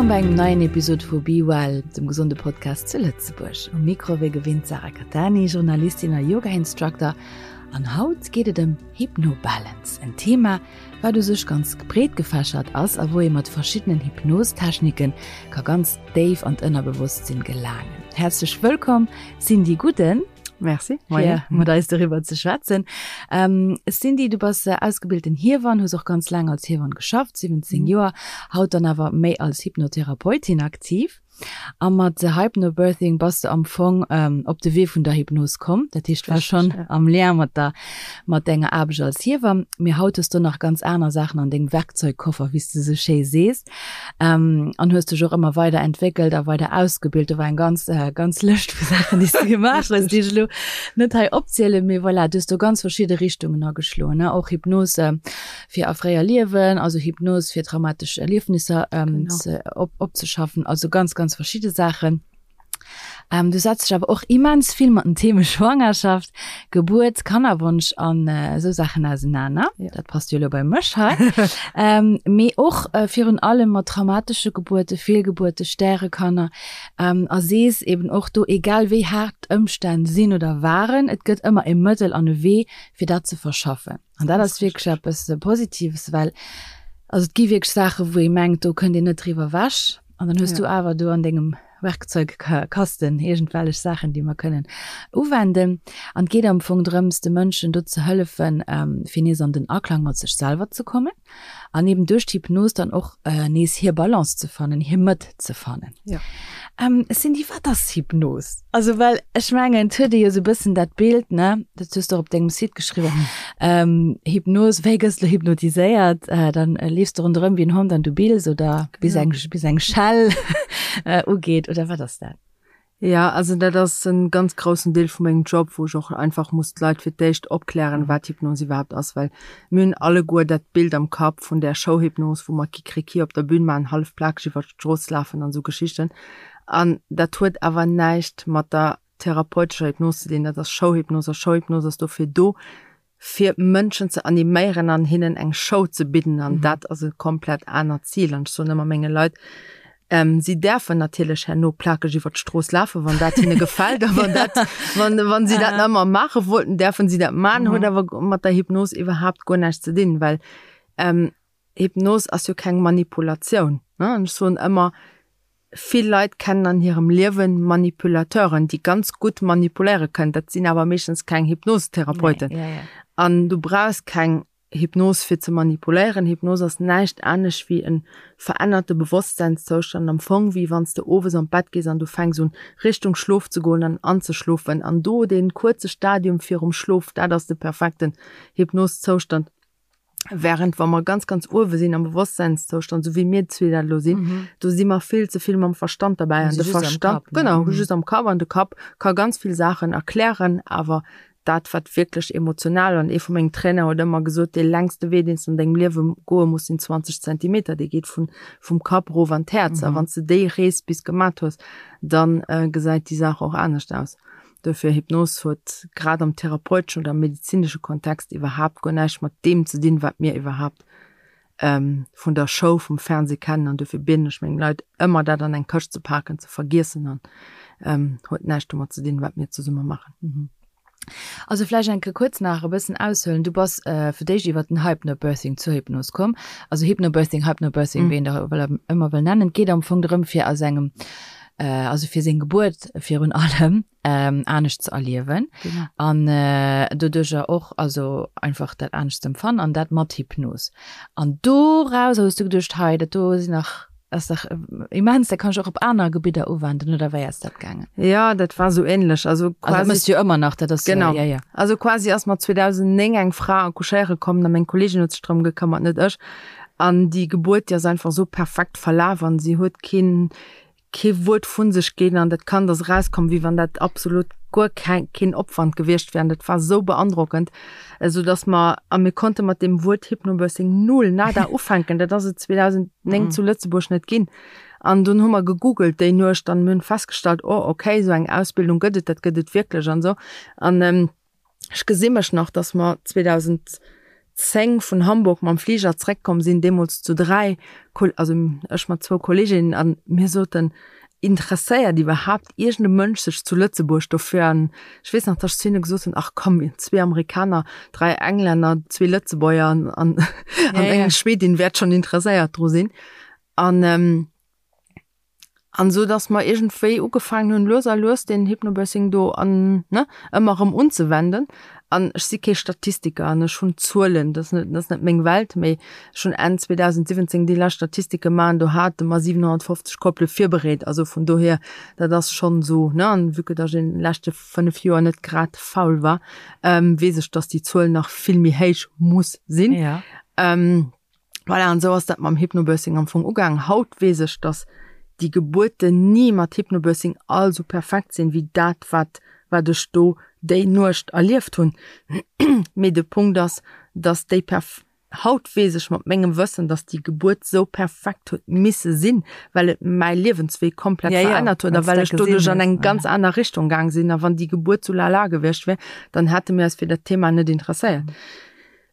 Wëllkomm bei engem neien Episod vu Be Well, dem gesonde Podcast zu Lëtzebuerg. Um Mikro wéi gewinnt d'Sarah Cattani, Journalistin a Yoga-Instructor. An haut geet et ëm Hypnobalance, en Thema, wat u sech ganz breet gefächert ass a wou ee mat verschiddenen Hypnostechniken ka ganz déif an d'Ënnerbewosstsinn gelaangen. Häerzlech wëllkomm Cindy Gudden. Merci. Fir mat eis doriwwer ze schwätzen. Ähm, Cindy, du bass ausgebilten Hiewann, hues och ganz laang als Hiewann geschafft, 17 mhm. Joer, haut dann awer méi als Hypnotherapeutin aktiv. A mat Hypnobirthing bass de am Fong op de Wee vun der Hypnos komm. Dat heescht, war schonn am Lien mat der, mat denger Aarbecht als Hiewamm. Mee haut hues du nach ganz aner Saachen an dengem Werkzeugkoffer, wéi s de esou schéi sees. An hues dech och ëmmer weider entwéckelt a weider ausgebilt. Do war eng ganz, ganz Lëscht vu Saachen, déi s de gemaach hues, déi ech elo net hei opzielen. Mee voilà, du hues do ganz verschidde Richtungen ageschloen, ne? Och Hypnos, fir a fréier Liewen, also Hypnos fir traumatesch Erliefnisser ähm, ze, op, opzeschaffen, also ganz, ganz verschidde Saachen. Ähm, du setz dech awer och immens vill mat den Theme Schwangerschaft, Gebuert, Kannerwonsch an äh, esou Saachen ausenaner. Ja. Dat passt jo elo bei mech hei. ähm, mee och äh, virun allem mat traumatesche Gebuerte, Fehlgebuerte, Stärekanner ähm, a sees eben och do, egal wéi haart d'Ëmstänn sinn oder waren, et gëtt ëmmer e Mëttel an e Wee, fir dat ze verschaffen. An dat ass wierklech eppes Positives, well also et gi wierklech Saachen, wou ee mengt, do kënnt een net driwwer ewech. An dann hues du awer do an dengem Werkzeugkasten iergendwellech Saachen, déi mer kënnen uwenden. An et geet am Fong drëms, de Mënschen do ze hëllefen, fir nees an den Aklang mat sech selwer ze kommen. An eben duerch d'Hypnos dann och nees hir Balance ze fannen, hir Mëtt ze fannen. Ja. Cindy, wat ass Hypnos? Also well ech mengen, et huet ee jo esou e bëssen dat Bild, ne, dat hues de och op dengem Site geschriwwen, Hypnos, wéi gëss de hypnotiséiert? Dann leefs de ronderëm wéi en Hond an du bills oder bis eng, bis eng Schell ugeet oder wat ass dat? Ja, also dat ass en ganz groussen Deel vu mengem Job, wou ech och einfach muss d'Leit fir d'éischt opklären, wat Hypnos iwwerhaapt ass, well mir hunn alleguer dat Bild am Kapp vun där Showhypnos, wou mer Kikriki op der Bühn maachen, hallef plakeg iwwer d'Strooss lafen an esou Geschichten. An dat huet awer näischt mat der therapeutescher Hypnos ze dinn, dat ass Showhypnos a Showhypnos ass dofir do, fir Mënschen ze animéieren an hinnen eng Show ze bidden an dat ass e komplett anert Zil. An ech soen ëmmer menge Leit, si däerfen natierlech herno plakeg iwwer d'Strooss lafen, wann dat hinne gefält a wann dat, wann, wann si dat nach ëmmer maache wollten, däerfen si dat maachen, huet awer mat der Hypnos iwwerhaapt guer näischt ze dinn, well Hypnos ass jo keng Manipulatioun, ne? An ech soen ëmmer, vill Leit kennen an hirem Liewen Manipulateuren, déi ganz gutt manipuléiere kënnen. Dat sinn awer meeschtens keng Hypnosetherapeuten. An du brauchs keng Hypnos fir ze manipuléieren. Hypnos ass näischt anescht wéi e verännerte Bewosstseinszoustand, am Fong wéi wann s de owes an d'Bett gees an du fänks un Richtung Schlof ze goen an anzeschlofen. An do dee kuerze Stadium virum Schlof, dat ass de perfekten Hypnoszoustand. Während wa mer ganz, ganz uewe sinn am Bewosstseinszoustand, sou wéi mir zwee dat elo sinn, mhm. do si mer vill ze vill mam Verstand dabei. An de Verstand, Kapp, ne? genau, mhm. just am Kapp an de Kapp ka ganz vill Saachen erklären, awer dat wat wierklech emotional an ee vu mengem Trainer huet ëmmer gesot, dee längste Wee, deen s du an dengem Liewe goe muss, sinn 20 Zentimeter, dee geet vun, vum Kapp erof an d'Häerz. Mhm. A wann s du déi Rees bis gemat hues, dann äh, gesäit déi Saach och anescht aus. Dofir, Hypnos huet grad am therapeuteschen oder am medezinesche Kontext iwwerhaapt guer näischt mat deem ze dinn, wat mir iwwerhaapt vun der Show, vum Fernseh kennen. An dofir bieden ech meng Leit ëmmer, dat an eng Këscht ze paken, ze vergiessen an huet näischt domat ze dinn, wat mir zesumme maachen. Also vläicht eng Kéier kuerz nach e bëssen aushuelen. Du bass fir d'éischt iwwer den Hypnobirthing zur Hypnos komm. Also Hypnobirthing, Hypnobirthing, wéi een dat ëmmer wëll nennen. Et geet am Fong drëm, fir aus engem also fir seng Gebuert virun allem anescht ze erliewen an doduercher och also einfach dat anescht ze empfannen an dat mat Hypnos. An dorauser hues du geduecht, hei dat do sinn nach ass dach immens, dat kann ech och op aner Gebidder uwenden oder wéi ass dat gaangen? Jo, dat war sou ähnlech. Also quasi. Also dat mëss du jo ëmmer nach, dat ass genau. Ja, ja. Also quasi ass mer 2009 eng Fra accouchéiere komm a meng Kolleegin huet sech drëm gekëmmert, net ech. An déi Gebuert, déi ass einfach sou perfekt verlaf an si huet keen kee Wuert vu sech ginn an dat Kand ass erauskomm, wéi wann dat absolut guer keng, keen Opwand gewiescht wär. An dat war sou beandrockend, esou dass mer, a mir konnte mat deem Wuert Hypnobirthing null, nada ufänken. Dat ass et 2009 zu Lëtzebuerg net ginn. An dunn hu mer gegoogelt déi Nuecht an mir hunn festgestallt, oh okay, esou eng Ausbildung gëtt et, dat gëtt et wierklech an esou. An ech gesi mech nach, dass mer 2010. 2010 vun Hamburg mam Fliger zréckkomm sinn, deemools zu 3, also ech mat zwou Kolleeginnen, an mir soten, Interesséiert iwwerhaapt iergend e Mënsch sech zu Lëtzebuerg dofir? An ech weess nach, datt ech zu hinne gesot hunn, Ach komm, zwee Amerikaner, 3 Englänner, zwee Lëtzebuerger an, an, an eng Schwedin wäert schonn interesséiert dru sinn. An, An esou dass mer iergendwéi ugefaangen hunn, lues a lues deen Hypnobirthing do an, ne, ëmmer erëm unzewenden. An ech si kee Statistiker an ech hunn d'Zuelen, dat ass net, dat ass net meng Welt, mee ech hunn Enn 2017 déi lescht Statistike gemaach an do hate mer 750 Koppele virbereet. Also vun dohier, dat ass schonn esou, ne, an vue que dass ech an de leschte 5 Joer net grad faul war, weess ech, dass déi Zuel nach vill méi héich muss sinn. Voilà, an esou ass dat mam Hypnobirthing am Fong ugaangen. Haut weess ech, dass déi Gebuerten ni mat Hypnobirthing all esou perfekt sinn, wéi dat, wat, wat ech do déi Nuecht erlieft hunn. Mee de Punkt ass, dass déi perf. Haut weess ech mat mengem Wëssen, dass déi Gebuert esou perfekt huet misse sinn, well et mäi Liewenswee komplett Ja, ja, verännert huet a well s well dat ech doduerch gesinn an eng hues, ganz ja. aner Richtung gaang sinn. A wann déi Gebuert sou lala gewiescht wär, dann hätte mir eis fir dat Thema net interesséiert.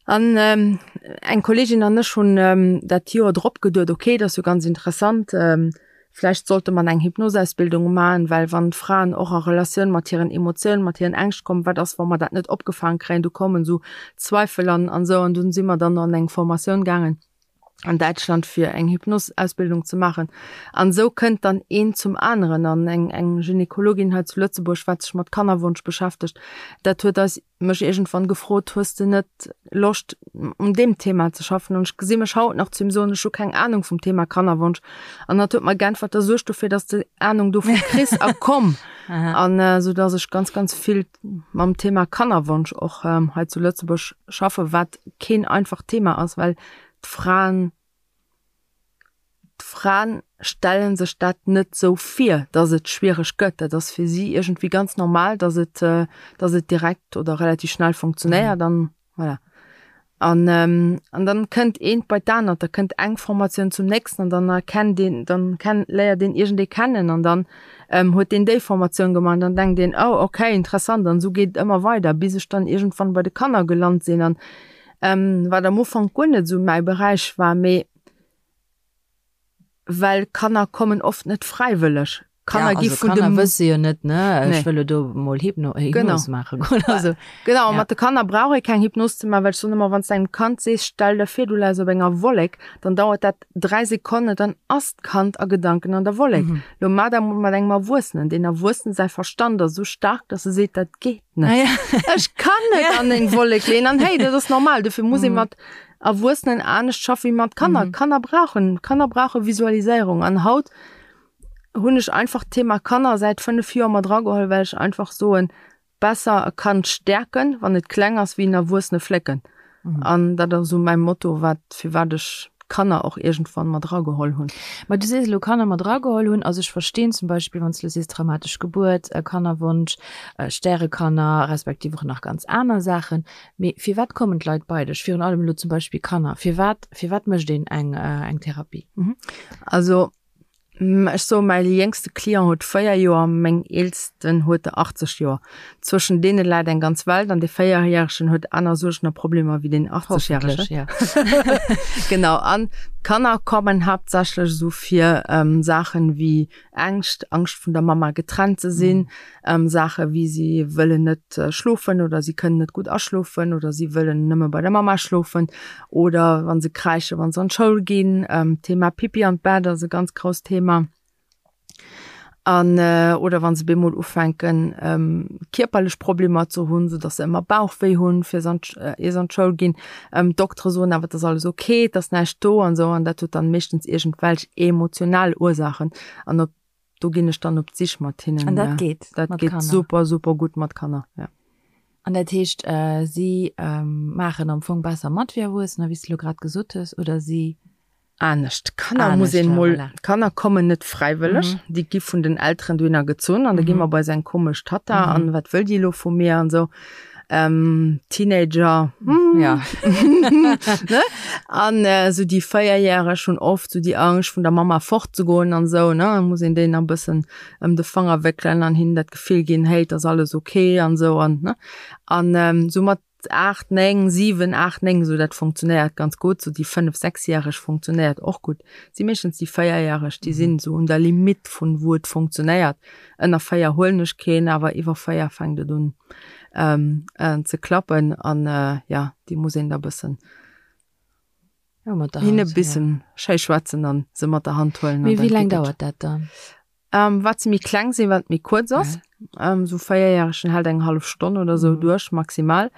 An eng Kolleegin an ech hunn dat Joer drop geduet, ok, dat ass jo ganz interessant, vläicht sollte mer eng Hypnosausbildung maachen, well wann d'Fraen och a Relatioun mat hiren Emotiounen, mat hiren Ängscht kommen, wat ass, wa mer dat net opgefaang kréien, do kommen esou Zweifel an an esou. An dunn si mer dann an eng Formatioun gaangen an Däitschland fir eng Hypnosausbildung ze maachen. An esou kënnt dann eent zum aneren. An eng eng Gynekologin hei zu Lëtzebuerg, wat sech mat Kannerwonsch beschäftegt, dat huet eis mech iergendwann gefrot, hues de net Loscht un deem Thema ze schaffen? An ech gesi mech haut nach zu him soen, ech hu keng Ahnung vum Thema Kannerwonsch. An hatt huet mer geäntwert, da suerg dofir, dass de Ahnung dovu kriss a komm. An esou dass ech ganz, ganz vill mam Thema Kannerwonsch och hei zu Lëtzebuerg schaffen, wat keen einfacht Thema ass, well d'Fraen, D'Fraen stelle sech dat net sou vir, dass et schwiereg gëtt. Dat ass fir si iergendwéi ganz normal, dass et, dass et direkt oder relativ schnell funktionéiert an voilà. An, an dann kënnt eent bei d'anert, da kënnt eng Formatioun zum nächsten an dann erkennt een, dann kenn, léiert een iergendee kennen an dann huet deen déi Formatioun gemaach an dann denkt een, oh okay, interessant an esou geet et ëmmer weider, bis ech dann iergendwann bei de Kanner gelant sinn an wat am Ufank guer net esou mäi Beräich war, mee Well Kanner kommen oft net fräiwëlleg. Kanner gi ja, also vun Kanner dem wësse jo net, ne, ech Nee. wëll lo do mol Hypno, Genau. Hypnos maache goen. Also, Genau, ja. mat de Kanner brauch ee keng Hypnos ze maachen, well ech soen ëmmer, wann s de engem Kand sees, stell der vir, du läis op enger Wollek, dann dauert dat 3 Sekonnen, dann ass d'Kand a Gedanken an der Wollek. Lo maach dat mol mat engem Erwuessenen. Deen Erwuessenen säi Verstand ass esou staark, dass e seet, dat geet net. Ah, ja. Ech kann net an eng Wollek leeën. An hey, dat ass normal, dofir muss ee mat Erwuessenen anescht schaffe wéi mat Kanner. Mhm. Kanner brauchen, Kanner brauche Visualiséierung. An haut hunn ech einfach d'Thema Kanner säit 5 Joer mat rageholl, well ech einfach soen, besser e Kand stäerken, wann et kleng ass, wéi en Erwuessene flécken. Mhm. An dat ass esou mäi Motto, wat, firwat ech d'Kanner och iergendwann mat rageholl hunn. Ma du sees elo Kanner mat rageholl hunn. Also ech verstinn zum Beispill, wann s du elo sees traumatesch Gebuert, Kannerwonsch, Stärekanner, respektiv och nach ganz aner Saachen. Mee firwat kommen d'Leit bei dech? Virun allem elo zum Beispill Kanner. Firwat, firwat mécht een eng, eng Therapie? Also ech soe mäi jéngste Client huet 4 Joer, meng eelsten huet der 80 Joer. Zwëschen deene läit eng ganz Welt an dee Véierjäregen huet aner Suergen a Problemer wéi deen 80 järegen. Hoffentlech, ja. Genau. An d'Kanner kommen haaptsächlech esou fir Saachen wéi Ängscht, Angscht vun der Mama getrennt ze sinn, Saache wéi si wëllen net schlofen oder si kënnen net gutt aschlofen oder si wëllen nëmme bei der Mama schlofen oder wa se kräische wa se an d'Schoul ginn. D'Thema Pipi an d'Bett ass e ganz grousst Thema. An oder wa se bemol ufänken kierperlech Problemer ze hunn, sou datt se ëmmer Bauchwéi hunn, fir se an ier se an d'Schoul ginn. D'Doktere soen awer, et ass alles ok, et ass näischt do an esou an dat huet dann meeschtens iergendwelch emotional Ursaachen an op do ginn ech dann op d'Sich mat hinnen. An dat geet Dat mat geet Kanner? super, super gutt mat Kanner, ja. An dat heescht, si maachen am Fong besser mat wéi Erwuessener, wéi s de elo grad gesot hues, oder si. Anescht. Kanner muss een mol, voilà. Kanner kommen net fräiwëlleg, mhm. déi gi vun den Elteren dohinner gezunn an da gi mer bei seng komesch Tatta mhm. an wat wëll déi lo vu mir an sou. Ähm, Teenager hm. ja. ne? an äh, so déi Véierjäreg hunn oft so déi Angscht vun der Mama fortzegoen an sou ne muss een déi nach bëssen ëm de Fanger wéckelen an hinnen dat Gefill ginn, hey, et ass alles okay an sou an ne an ähm, soumat. 8, 9, 7, 8, 9, esou dat funktionéiert ganz gutt. Sou déi 5, 6-järeg funktionéiert och gutt. Et si meeschtens déi 4-järeg, déi sinn esou un der Limitt vun wou et funktionéiert. Ënner 4 huelen ech keen, awer iwwer 4 fänkt et un ze klappen an jo, déi muss een da bëssen hinne bëssen schéi schwätzen an se mat der Hand huelen. Mee wéi laang dauert dat dann? Wat se méi kleng sinn, wat méi kuerz ass. Esou véierjäregen hält eng hallef Stonn oder esou duerch maximal.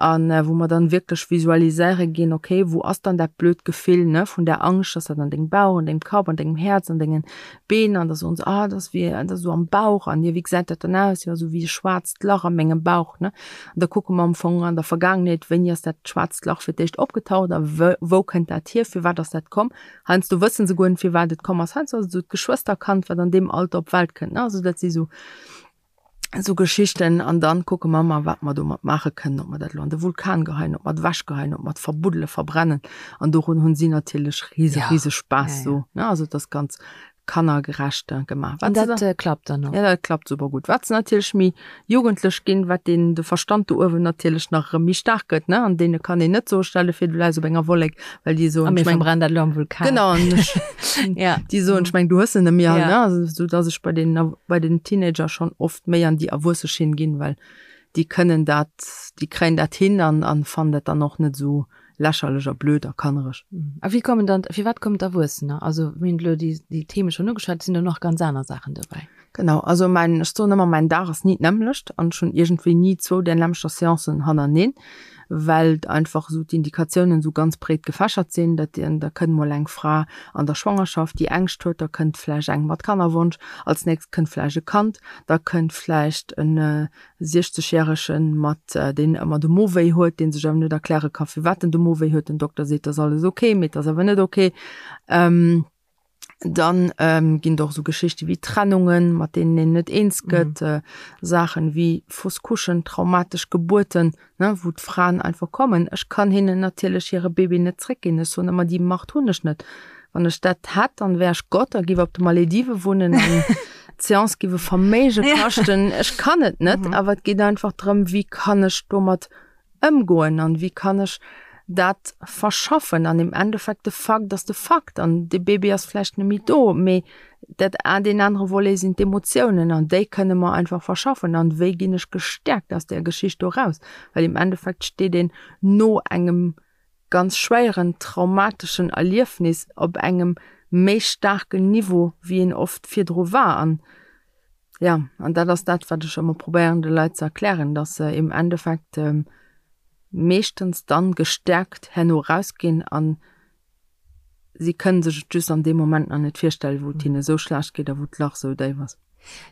An wou mer dann wierklech visualiséiere ginn, okay, wou ass dann dat blöd Gefill, ne, vun der Angscht, ass dat an dengem Bauch, an dengem Kapp, an dengem Häerz, an dengen Been? An da soen se, ah, dat ass wéi, dat ass esou am Bauch. An jo, wéi gesäit dat dann aus? Jo, esou wéi e schwaarzt Lach a mengem Bauch, ne. An da kucke mer am Fong an der Vergaangenheet, wéini ass dat schwaarzt Lach fir d'éischt opgetaucht a wou kënnt dat hier, firwat ass dat komm? Heiansdo wësse se guer net, firwat et komm ass. Heiansdo ass et esou d'Geschwësterkand, wat an deem Alter op d'Welt kënnt, ne. Also dat si sou, sou Geschichten. An dann kucke mer ëmmer, wat mer domat maache kënnen, ob mer dat elo an de Vulkan geheien, ob mer et ewechgeheien, ob mer et verbuddelen, verbrennen. An dorun hunn si natierlech rise, rise Spaass sou, ne. Also et ass ganz kannergerecht gemaach. An dat klappt dann och? Ja, dat klappt super gutt. Wat se natierlech méi jugendlech ginn, wat deen de Verstand do uewen natierlech nach erëm méi staark gëtt, ne? An deene kann een net soen, stell de vir, du läis op enger Wollek, well déi soen, ech meng. A mir verbrennen dat elo am Vulkan. Genau, an ech, ja. déi soen, ech meng, du hues se net méi all, ne? Also, sou dass ech bei den, bei den Teenager schonn oft méi an déi erwuesse Schinn ginn, well déi kënnen dat, déi kréien dat hin an, an fannen dat dann och net esou lächerlech a blöd a kannereg. A wéi kommen dann, firwat kommen d'Erwuessener? Also mir hunn elo déi, déi Theme schonn ugeschwat, et sinn do nach ganz aner Saachen dobäi. Genau, also mäin, ech soen ëmmer, mäin Dag ass ni d'nämmlecht an ech hunn iergendwéi ni zwou där nämmlechter Seancen hannerneenen, well einfach esou d'Indikatiounen esou ganz breet gefächert sinn. Dat, da kënnt mol eng Fra an der Schwangerschaft, déi Ängscht huet, da kënnt vläicht eng mat Kannerwonsch, als nächst kënnt vläicht e Kand, da kënnt vläicht en 60 järegen mat deen ëmmer de Mo wéi huet, deen sech awer net erkläre ka firwat en de Mo wéi huet, den Dokter seet ass alles ok, mee et ass awer net ok. Dann ginn et och esou Geschichte wéi Trennungen, mat deenen een net eens gëtt, Saachen wéi Fausse couchen, traumatesch Gebuerten, ne, wou d'Fraen einfach kommen. Ech kann hinnen natierlech hire Bébé net zréckginn, ech soen ëmmer, déi Macht hunn ech net. Wann ech dat hätt, dann wär ech Gott a giff op de Maledive wunnen an d'Seance giff e Verméige kaschten. Ech kann et net, awer et geet einfach drëm, wéi kann ech domat ëmgoen an wéi kann ech dat verschaffen. An im Endeffekt, de Fakt ass de Fakt an de Bébé ass vläicht net méi do, mee dat deen anere Volet sinn d'Emotiounen an déi kënne mer einfach verschaffen. An wéi ginn ech gestäerkt aus där Geschicht do raus? Well im Endeffekt steet een no engem ganz schwéieren traumateschen Erliefnis op engem méi staarken Niveau wéi een oft virdru war. An ja, an dat ass dat wat ech ëmmer probéieren de Leit ze erklären, dass se im Endeffekt meeschtens dann gestärkt herno rausginn an si kënnen sech et just an deem Moment nach net virstellen, wou et hinne sou schlecht geet a wou d'Lach sou déif ass.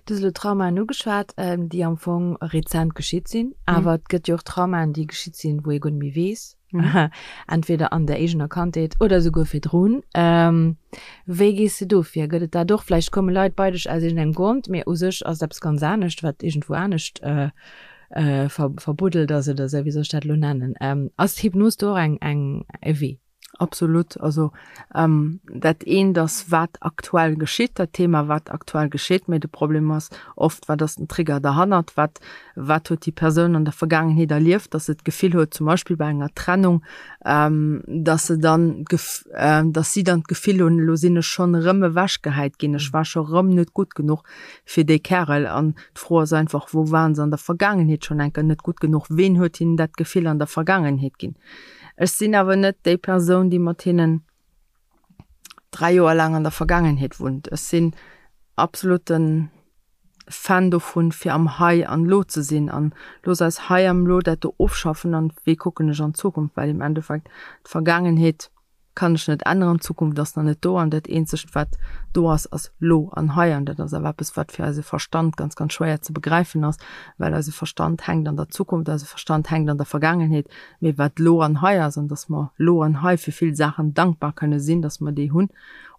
Du hues elo Traumaen ugeschwat, déi am Fong rezent geschitt sinn. Awer et gëtt jo och Traumaen, déi geschitt sinn, wou ee guer net méi weess, entweder an der eegener Kandheet oder esouguer virdrun. Wéi gees de do vir? Gëtt et dat och? Vläicht komme Leit bei dech aus iergendengem Grond, mee u sech ass et eppes ganz anescht, wat iergendwou anescht verbuddelt ass oder esou, wéi soll ech dat elo nennen? Ass d'Hypnos do och eng, eng, e Wee? Absolut. Also dat eent ass, wat aktuell geschitt, dat Thema, wat aktuell geschitt, mee de Problem ass oft, wat ass den Trigger derhannert, wat, wat huet déi Persoun an der Vergaangenheet erlieft, dass se d'Gefill huet, zum Beispill bei enger Trennung, dass se dann d'Gef, dass si dann d'Gefill hunn, elo sinn ech schonn erëm ewechgehäit ginn, ech war scho rëm net gutt genuch fir dee Kärel. An d'Fro ass einfach, wou waren se an der Vergaangenheet schonn eng Kéier net gutt genuch, ween huet hinnen dat Gefill an der Vergaangenheet ginn? Ech sinn awer net déi Persoun, déi mat hinnen 3 Joer laang an der Vergaangenheet wunnt. Ech sinn absoluten Fan dovun, fir am Hei an Lo ze sinn an looss eis hei am Lo dat do ofschaffen an wéi kucken ech an d'Zukunft, well im Endeffekt d'Vergaangenheet kann ech net änneren, d'Zukunft ass nach net do an dat eenzegt wat do ass, ass lo an hei an dat ass awer eppes wat fir eise Verstand ganz ganz schwéier ze begräifen ass, well eise Verstand hänkt an der Zukunft, eise Verstand hänkt an der Vergaangenheet, mee wat lo an hei ass an dass mer lo an hei fir vill Saachen dankbar kënne sinn, dass mer déi hunn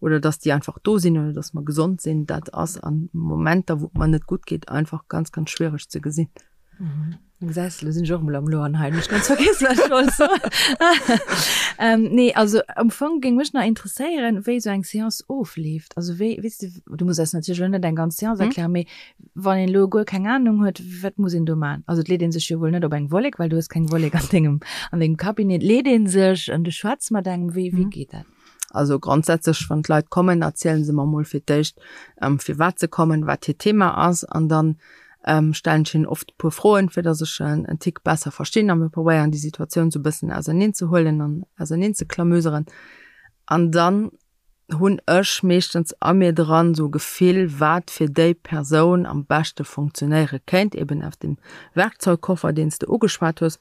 oder dass déi einfach do sinn oder dass mer gesond sinn, dat ass a Momenter wou et mer net gutt geet einfach ganz ganz schwiereg ze gesinn. Gesäis de, lo sinn ech och emol am Loan hei, hunn ech ganz vergiess, wat ech wollt soen. Nee, also am Fong géing mech nach interesséieren, wéi esou eng Seance ofleeft. Also wéi, weess de, du muss eis natierlech elo net eng ganz Seance erklären, mee wann een elo guer keng Anung huet, wat muss een do man? Also et leet een sech jo wuel net op eng Wollek, well du hues keng Wollek an dengem, an dengem Cabinet. Leet een sech an du schwätz mat engem, wéi, wéi geet dat? Also grondsätzlech, wann d'Leit kommen, erzielen se mer mol fir d'éischt, firwat se kommen, wat hiert Thema ass an dann stellen ech hinnen oft e puer Froen, fir datt ech en Tick besser verstinn a mir probéieren déi Situatioun sou e bëssen auserneen ze huelen an auserneen ze klamüseren. An dann hunn ech meeschtens a mir dran sou e Gefill, wat fir déi Persoun am beschte funktionéiere kéint, eben aus dem Werkzeugkoffer, deen s de ugeschwat hues.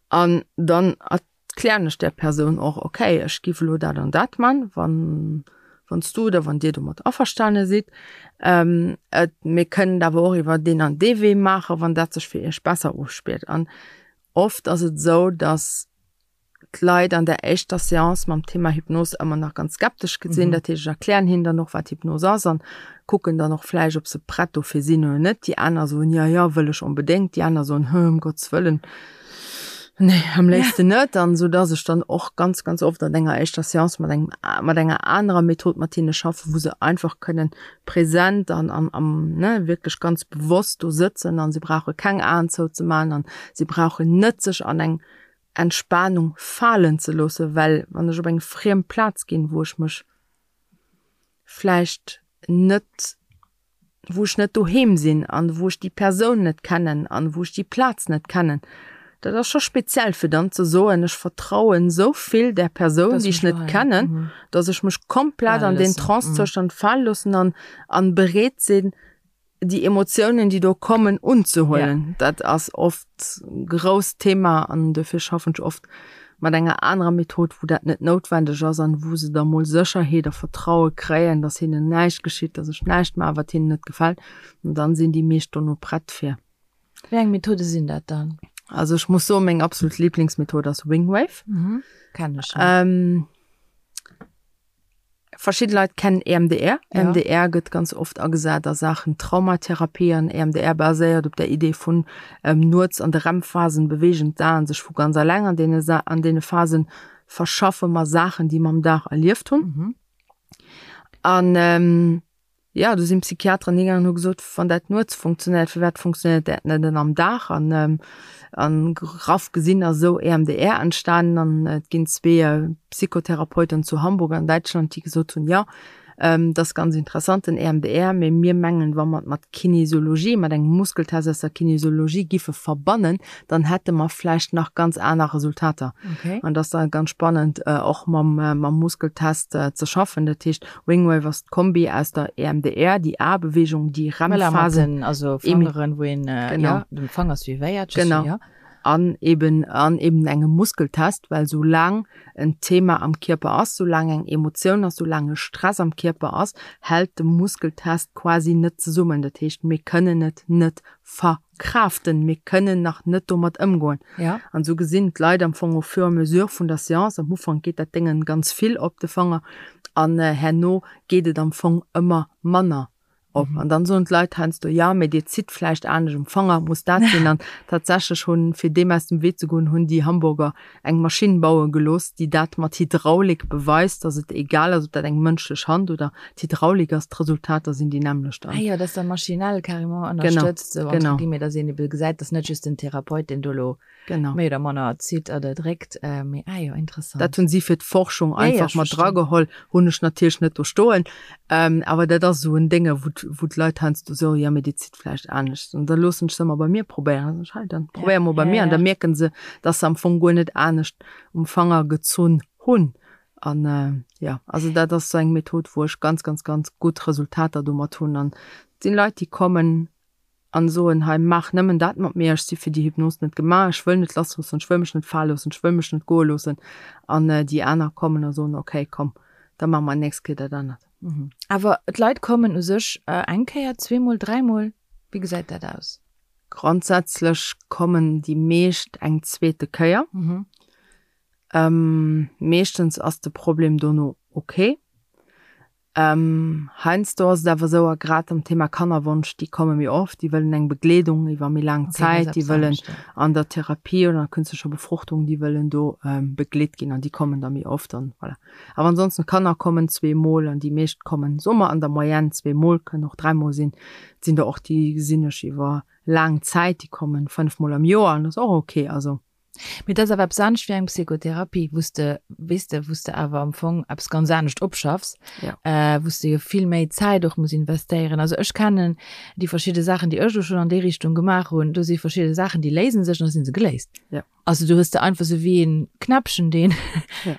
An dann erklären ech där Persoun och, okay, ech giff elo dat an dat man, wann wann s du oder wann dir domat averstane sidd. Et mir kënnen et awer och iwwer deen an dee Wee maachen, wann dat sech fir iech besser ofspillt. An oft ass et esou, dass d'Leit an der éischter Seance mam Thema Hypnos ëmmer nach ganz skeptesch sinn. Dat heescht, ech erklären hinnen dann och, wat Hypnos ass an kucken dann och vläicht, ob se prett dofir sinn oder net. Déi aner soen, jo, jo, wëll ech onbedéngt. Déi aner soen, hë, ëm Gottes Wëllen, nee, am léifsten net. An esou dass ech dann och ganz, ganz oft an enger éischter Seance mat engem, mat enger anerer Method mat hinne schaffen, wou se einfach kënnen present an am, am, ne, wierklech ganz bewosst do sëtzen an se brauche keng Aen zouzemaachen an se brauchen net sech an eng Entspanung falen ze loossen, well wann ech op eng friem Plaz ginn, wou ech mech vläicht net, wou ech net doheem sinn an wou ech déi Persoun net kennen an wou ech déi Plaz net kennen, dat ass scho speziell fir dann ze soen, ech vertrauen esou vill där Persoun, déi ech net kennen, dass ech mech komplett an deen Trance-Zoustand fale loossen an an bereet sinn, déi Emotiounen, déi do kommen, unzehuelen. Ja. Dat ass oft grousst Thema an dofir schaffen ech oft mat enger anerer Method, wou dat net noutwendeg ass an wou se da mol Sécherheet a Vertraue kréien, dass hinnen näischt geschitt, dass ech näischt maachen, wat hinnen net gefält. An dann sinn déi meescht dono prett fir. Wéi eng Methode sinn dat dann? Also ech muss soen, meng absolut Lieblingsmethod ass Wingwave. Mhm. Kenn ech. Ähm, Verschidde Leit kennen EMDR. Ja. EMDR gëtt ganz oft agesat a Saachen Traumatherapie an EMDR baséiert op der Idee vun ähm, nuets an de REM-Phasen beweegen d'Aen sech vu ganz alleng. An deene, Sa an deene Phasen verschaffe mer Saachen, déi mer am Dag erlieft hunn. Mhm. An ähm, Jo, do sinn d'Psychiateren higaangen an hu gesot, wann dat nuets funktionéiert, firwat funktionéiert dat net dann am Dag? An an graff gesinn ass esou EMDR entstanen an et ginn zwee Psychotherapeuten zu Hamburg an Däitschland, déi gesot hunn, jo, dat ass ganz interessant den EMDR, mee mir mengen, wa mer et mat Kinesiologie, mat engem Muskeltest aus der Kinesiologie giffe verbannen, dann hätte mer vläicht nach ganz aner Resultater. An dat ass da ganz spannend och mam mam Muskeltest ze schaffen. Dat heescht, Wingwave ass d'Kombi aus der EMDR, déi A-Bewegung, déi REM-Phasen. Also Fangeren, wou een ja, dem Fanger suivéiert. Genau. Ja. An eben, an eben engem Muskeltest, well soulaang en Thema am Kierper ass, soulaang eng Emotioun ass, soulaang e Stress am Kierper ass, hält de Muskeltest quasi net zesummen. Dat heescht, mir kënnen et net ver. Kraften, mir kënnen nach net domat ëmgoen. Ja. An esou gesinn d'Leit am Fong au fur et à mesure vun der Seance, am Ufank geet dat Déngen ganz vill op de Fanger an herno geet et am Fong ëmmer manner op. An dann soen d'Leit heiansdo, jo, mee Dir zitt vläicht anescht um Fanger, muss dat sinn. An tatsächlech hunn, fir deem aus dem Wee ze goen, hunn déi Hamburger eng Maschinn baue gelooss, déi dat mat Hydraulik beweist, dass et egal ass, ob dat eng mënschlech Hand oder d'Hydraulik ass, d'Resultater sinn déi nämmlecht. Ah jo, dass da maschinell carrément ënnerstëtzt, esou entre guillemets, dass een ebe gesäit, dass net just den Therapeut, deen do elo méi oder manner zitt oder dréckt, mee ah jo, interessant. Dat hunn si fir d'Forschung einfach mat drageholl, hunn ech natierlech net do stoen, awer dat ass esou en Dénge, wou wou d'Leit heiansdo soen, jo, mee Dir zitt vläicht anescht. An da loossen ech se ëmmer bei mir probéieren. Da soen ech, hei, dann probéier mol bei mir. An da mierken se, dass se am Fong guer net anescht um Fanger gezunn hunn. An jo, also dat ass esou eng Method, wou ech ganz, ganz, ganz gutt Resultater domat hunn. An et sinn Leit, déi kommen an soen, hei maach nëmmen dat mat mir, ech si fir déi Hypnos net gemaach, ech wëll net lassloossen, ech wëll mech net fale loossen, ech wëll mech net goe loossen. An déi aner kommen a soen, okay, komm, da maache mer nächst Kéier dat anert. Awer d'Leit kommen u sech eng Kéier, zweemol, dräimol? Wéi gesäit dat aus? Grondsätzlech kommen déi meescht eng zweete Kéier. Meeschtens ass de Problem dono ok. Heiansdo ass et awer esou, a grad am Thema Kannerwonsch, déi komme méi oft, déi wëllen eng Begleedung iwwer méi laang Zäit, déi wëllen an der Therapie oder an der künstlecher Befruchtung, déi wëllen do begleet ginn an déi kommen da méi oft an voilà. Awer ansonsten, d'Kanner kommen zweemol an déi meescht kommen, soe mer an der Moyenne zweemol, kënnen och dräimol sinn. Et sinn der och, déi gesinn ech iwwer laang Zäit, déi kommen fënnefmol am Joer an dat ass och ok. Also. Mee dat ass awer eppes anescht wéi eng Psychotherapie, wou s de, weess de, wou s de awer am Fong eppes ganz anescht opschaffs, wou s de jo vill méi Zäit och muss investéieren. Also ech kennen déi verschidde Saachen, déi ech elo schonn an déi Richtung gemaach hunn, do si verschidde Saachen, déi léise sech an da si se geléist. Also du hues de einfach sou wéi een Knäppchen, deen,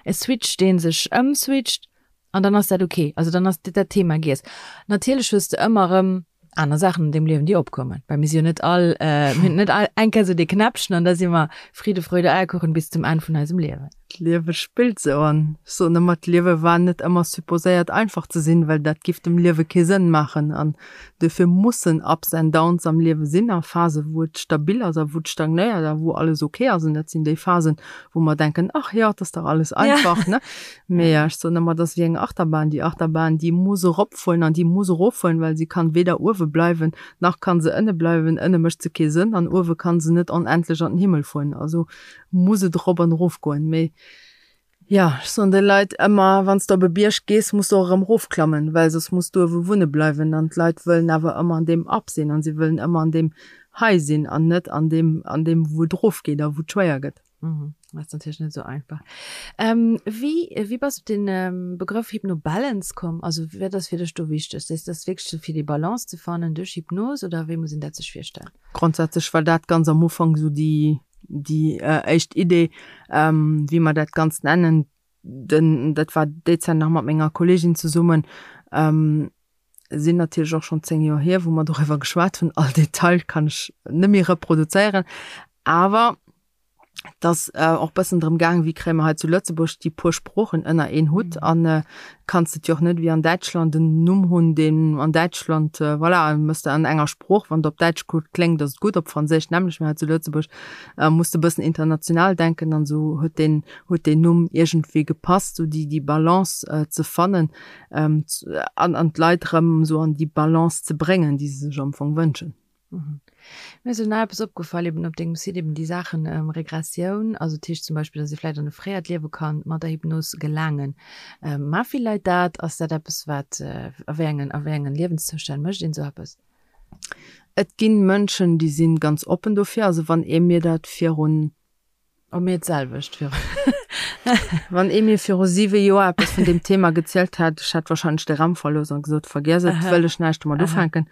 e Switch, dee sech ëmswitcht an dann ass dat ok. Also dann ass dat Thema giess. Natierlech hues de ëmmer erëm aner Saachen an deem Liewen, déi opkommen, well mir si jo net all, mir hunn net all eng Kéier sou dee Knäppchen an da si mer Friede, Freude, Eierkuchen bis zum Enn vun eisem Liewen. D'Liewe spillt sou an ech soen ëmmer, d'Liewe war net ëmmer supposéiert einfach ze sinn, well dat giff dem Liewe kee Sënn maachen an Duerfir mussen Ups and Downs am Liewe sinn a Phase wou et stabil ass a wou et stagnéiert a wou alles ok ass. An dat sinn déi Phasen, wou mer denken, ach jo, et ass dach alles einfach, ne? Mee ech soen ëmmer, et ass wéi eng Achterbahn. Déi Achterbahn, déi muss eropfueren an déi muss eroffueren, well si kann weder uewe bleiwen, nach kann se ënne bleiwen. Ënne mécht se kee Sënn an uewe kann se net onendlech an den Himmel fueren. Also muss et erop an erofgoen. Mee Jo, ech soen de Leit ëmmer, wann s de op e Bierg gees, muss de och erëm erofklammen, well soss muss du uewe wunne bleiwen. An d'Leit wëllen awer ëmmer an deem Up sinn an si wëllen ëmmer an deem High sinn an net an deem, an deem wou et erofgeet a wou et schwéier gëtt. Dat ass natierlech net esou einfach. Wéi, wéi bass de op den Begrëff Hypnobalance komm? Also wat ass fir dech do wichteg? Ass dat wierklech sou fir déi Balance ze fannen duerch Hypnos oder wéi muss een dat sech virstellen? Grondsätzlech war dat ganz am Ufank esou déi, déi éischt Idee, wéi mer dat Ganzt nennen. Den, dat war déi Zäit nach mat menger Kolleegin zesummen, sinn natierlech och schonn 10 Joer hier, wou mer doriwwer geschwat hunn. All Detail kann ech net méi reproduzéieren, awer et ass och bëssen drëm gaang, wéi kréie mer hei zu Lëtzebuerg déi puer Sproochen ënner een Hutt an kanns de et jo och net wéi an Däitschland en Numm hunn, deen an Däitschland, voilà, méchs de an enger Sprooch, wann de op Däitsch gutt kléngt, ass et gutt, op Franséisch nämmlecht, mä hei zu Lëtzebuerg muss de e bëssen international denken an esou huet deen, huet deen Numm iergendwéi gepasst, esou déi, déi Balance ze fannen an an d'Leit erëm esou an déi Balance ze bréngen, déi se sech am Fong wënschen. Mir ass elo nach eppes opgefall, eben op dengem Site, eben déi Saachen Regressioun, also dat heescht zum Beispill, dass ee vläicht an e fréiert Liewe kann mat der Hypnos gelaangen. Maache vill Leit dat? Ass dat eppes wat, a wéi engen, a wéi engen Liewenszoustänn mécht een esou eppes? Et ginn Mënschen, déi sinn ganz oppen dofir. Also wann ee mir dat virun Oh mir d'selwecht viru. Wann ee mir viru siwe Joer eppes vun deem Thema gezielt hätt, ech hätt wahrscheinlech de Raum verlooss an gesot, vergiess et, wëll ech näischt domat ufänken.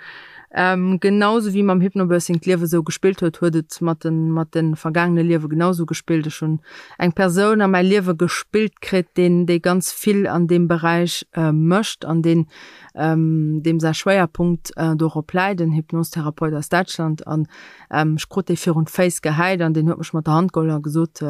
Ähm, genau sou wéi mam Hypnobirthing d'Liewe sou gespillt huet, huet et mat den, mat de vergaangene Liewe genau sou gespillt. Ech hunn eng Persoun a mäi Liewe gespillt kritt, deen, dee ganz vill an deem Beräich mécht an deen, deem säi Schwéierpunkt dorop läit, en Hypnostherapeut aus Däitschland. An Ech krut dee virun d'Féiss gehäit an deen huet mech mat der Hand geholl a gesot,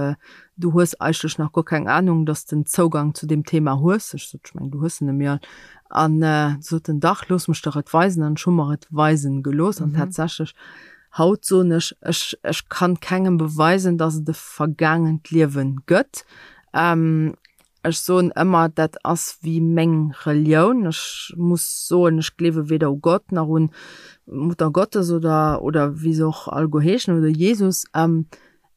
Du hues eigentlech nach guer keng Anung, dass de Zougang zu deem Thema hues. Ech sot, Ech mengen, du hues en nëmme all. An du sot en, Dach, looss mech der et weisen. An ech hu mer et weisen gelooss. An tatsächlech, haut soen ech, ech, ech kann kengem beweisen, dass et e vergaangent Liewen gëtt. Ech soen ëmmer, dat ass wéi meng Relioun. Ech muss soen, ech gleewe weder u Gott nach un d'Mutter Gottes oder, oder wéi se och alleguer heeschen, oder Jesus.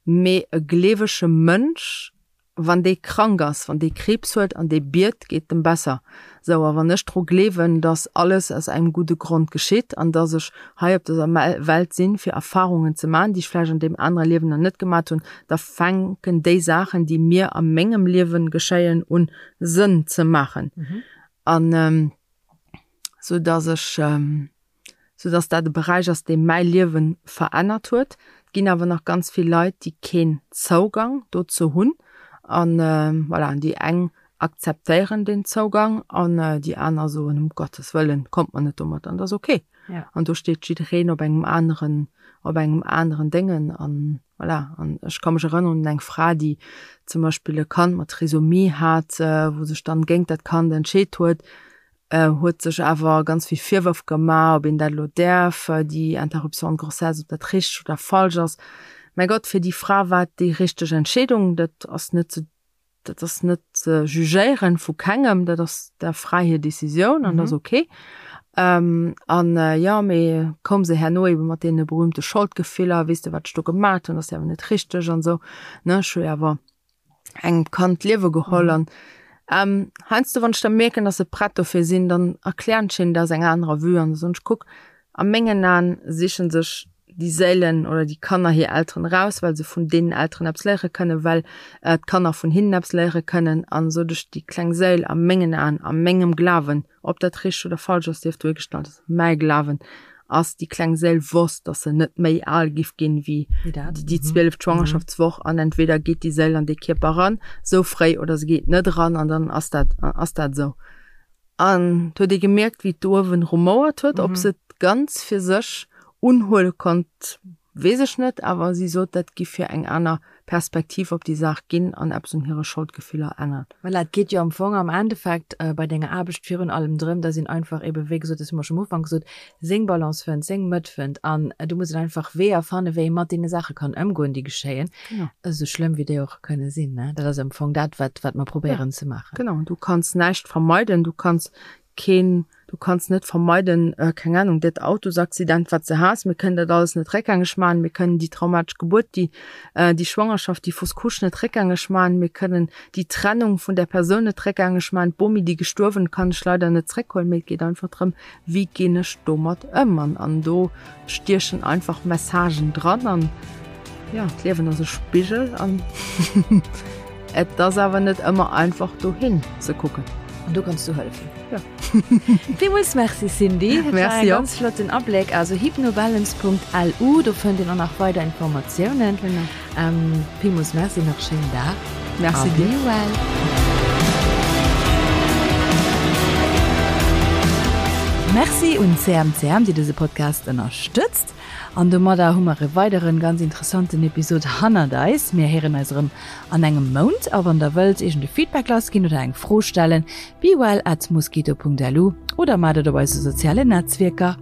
Mee e gleewege Mënsch, wann dee krank ass, wann dee Kriibs huet an dee biet, geet et em besser. Sou, a wann ech dru gleewen, dass alles aus engem gudde Grond geschitt an dass ech hei op dëser Welt sinn, fir Erfarungen ze maachen, déi ech vläicht an deem anere Liewen nach net gemat hunn, da fänken déi Saachen, déi mir a mengem Liewen geschéien, un Sënn ze maachen. An sou dass ech, sou dass dat e Beräich ass, dee mäi Liewe verännert huet. Et ginn awer nach ganz vill Leit, déi keen Zougang dozou hunn. An voilà, an déi eng akzeptéieren deen Zougang an déi aner soen, um Gottes Wëllen, kommt mer net domat, an dat ass ok. An do steet jiddereen op engem aneren, op engem aneren Déngen an voilà. An ech ka mech erënneren un eng Fra, déi zum Beispill e Kand mat Trisomie hat, wou sech dann géint dat Kand entscheet huet, huet sech awer ganz vill Virwërf gemaach, ob een dat elo däerf, déi Interruption de grossesse, ob dat richteg oder falsch ass. Mäi Gott, fir déi Fra war et déi richteg Entscheedung, dat ass net ze. dat ass net ze jugéieren vu kengem, dat ass der fräi hir Decisioun an dat ass ok. An jo, mee koum se herno ebe mat deene berühmte Scholdgefiller, weess de wat ech do gemat hunn, ass jo awer net richteg an esou, ne, ech hu jo awer engem Kand d'Liewe geholl an heiansdo wann ech da mierken, dass se prett dofir sinn, dann erklären ech hinnen dat aus enger anerer Vue an da soen ech, kuck, a mengen Aen sichen sech déi Séilen oder déi Kanner hir Elteren eraus, well se vun deenen Elteren eppes léiere kënnen, well d'Kanner vun hinnen eppes léiere kënnen an esou duerch déi kleng Séil a mengen Aen, a mengem Glawen, ob dat richteg oder falsch ass, sief dohigestallt, ass mäi Glawen, ass déi kleng Séil wosst, dass se net méi al giff ginn wéi déi zwieleft Schwangerschaftswoch an entweder geet déi Séil an dee Kierper eran esou fréi oder se geet net eran an dann ass dat ass dat esou. An et huet ee gemierkt, wéi d'Uewen rumouert huet. Ob se et ganz fir sech unhuele konnt, weess ech net, awer si sot, dat giff hir eng aner Perspektiv op déi Saach ginn an eppes un hire Scholdgefiller änneren. Voilà, et geet jo am Fong am Endeffekt bei denger Aarbecht virun allem drëm, dass een einfach eben, wéi gesot, dat hu mer scho am Ufank gesot, seng Balance fënnt, seng Mëtt fënnt an do muss een einfach Weeër fannen, wéi ee mat deene Saache kann ëmgoen, déi geschéien, esou schlëmm wéi déi och kënne sinn, ne. Dat ass am Fong dat, wat, wat mer probéieren ze maachen. Genau, du kanns näischt vermeiden, du kanns keen, du kanns net vermeiden, keng Ahnung, dat Autosaccident, wat s de has, mir kënnen dat alles net réckgängeg maachen, mir kënnen déi traumatesch Gebuert, déi, déi Schwangerschaft, déi Fausse couche net réckgängeg maachen, mir kënnen déi Trennung vun där Persoun net réckgängeg maachen, d'Bomi, déi gestuerwen, kann ech leider net zréckhuelen, mee et geet einfach drëm, wéi ginn ech domat ëm? An, an do stiechen einfach Messagen dran an ja, d'Liewen ass e Spigel an et ass awer net ëmmer einfach dohin ze kucken. An do kanns du hëllefen. Ja. Villmools Merci Cindy. Dat war e ganz flotten Abléck. Also hypnobalance.lu, do fënnt een och nach weider Informatiounen. Genau. Villmools Merci, nach schéinen Dag. Merci dir. Be well. Merci un CMCM, déi dëse Podcast ënnerstëtzt. An domadder hu mer e weideren ganz interessanten Episod hannert eis. Mir héieren eis erëm an engem Mount. A wann der wëllt iergend e Feedback lassginn oder eng Fro stellen, bewell at mosquito.lu oder maacht et op eise sozialen Netzwierker.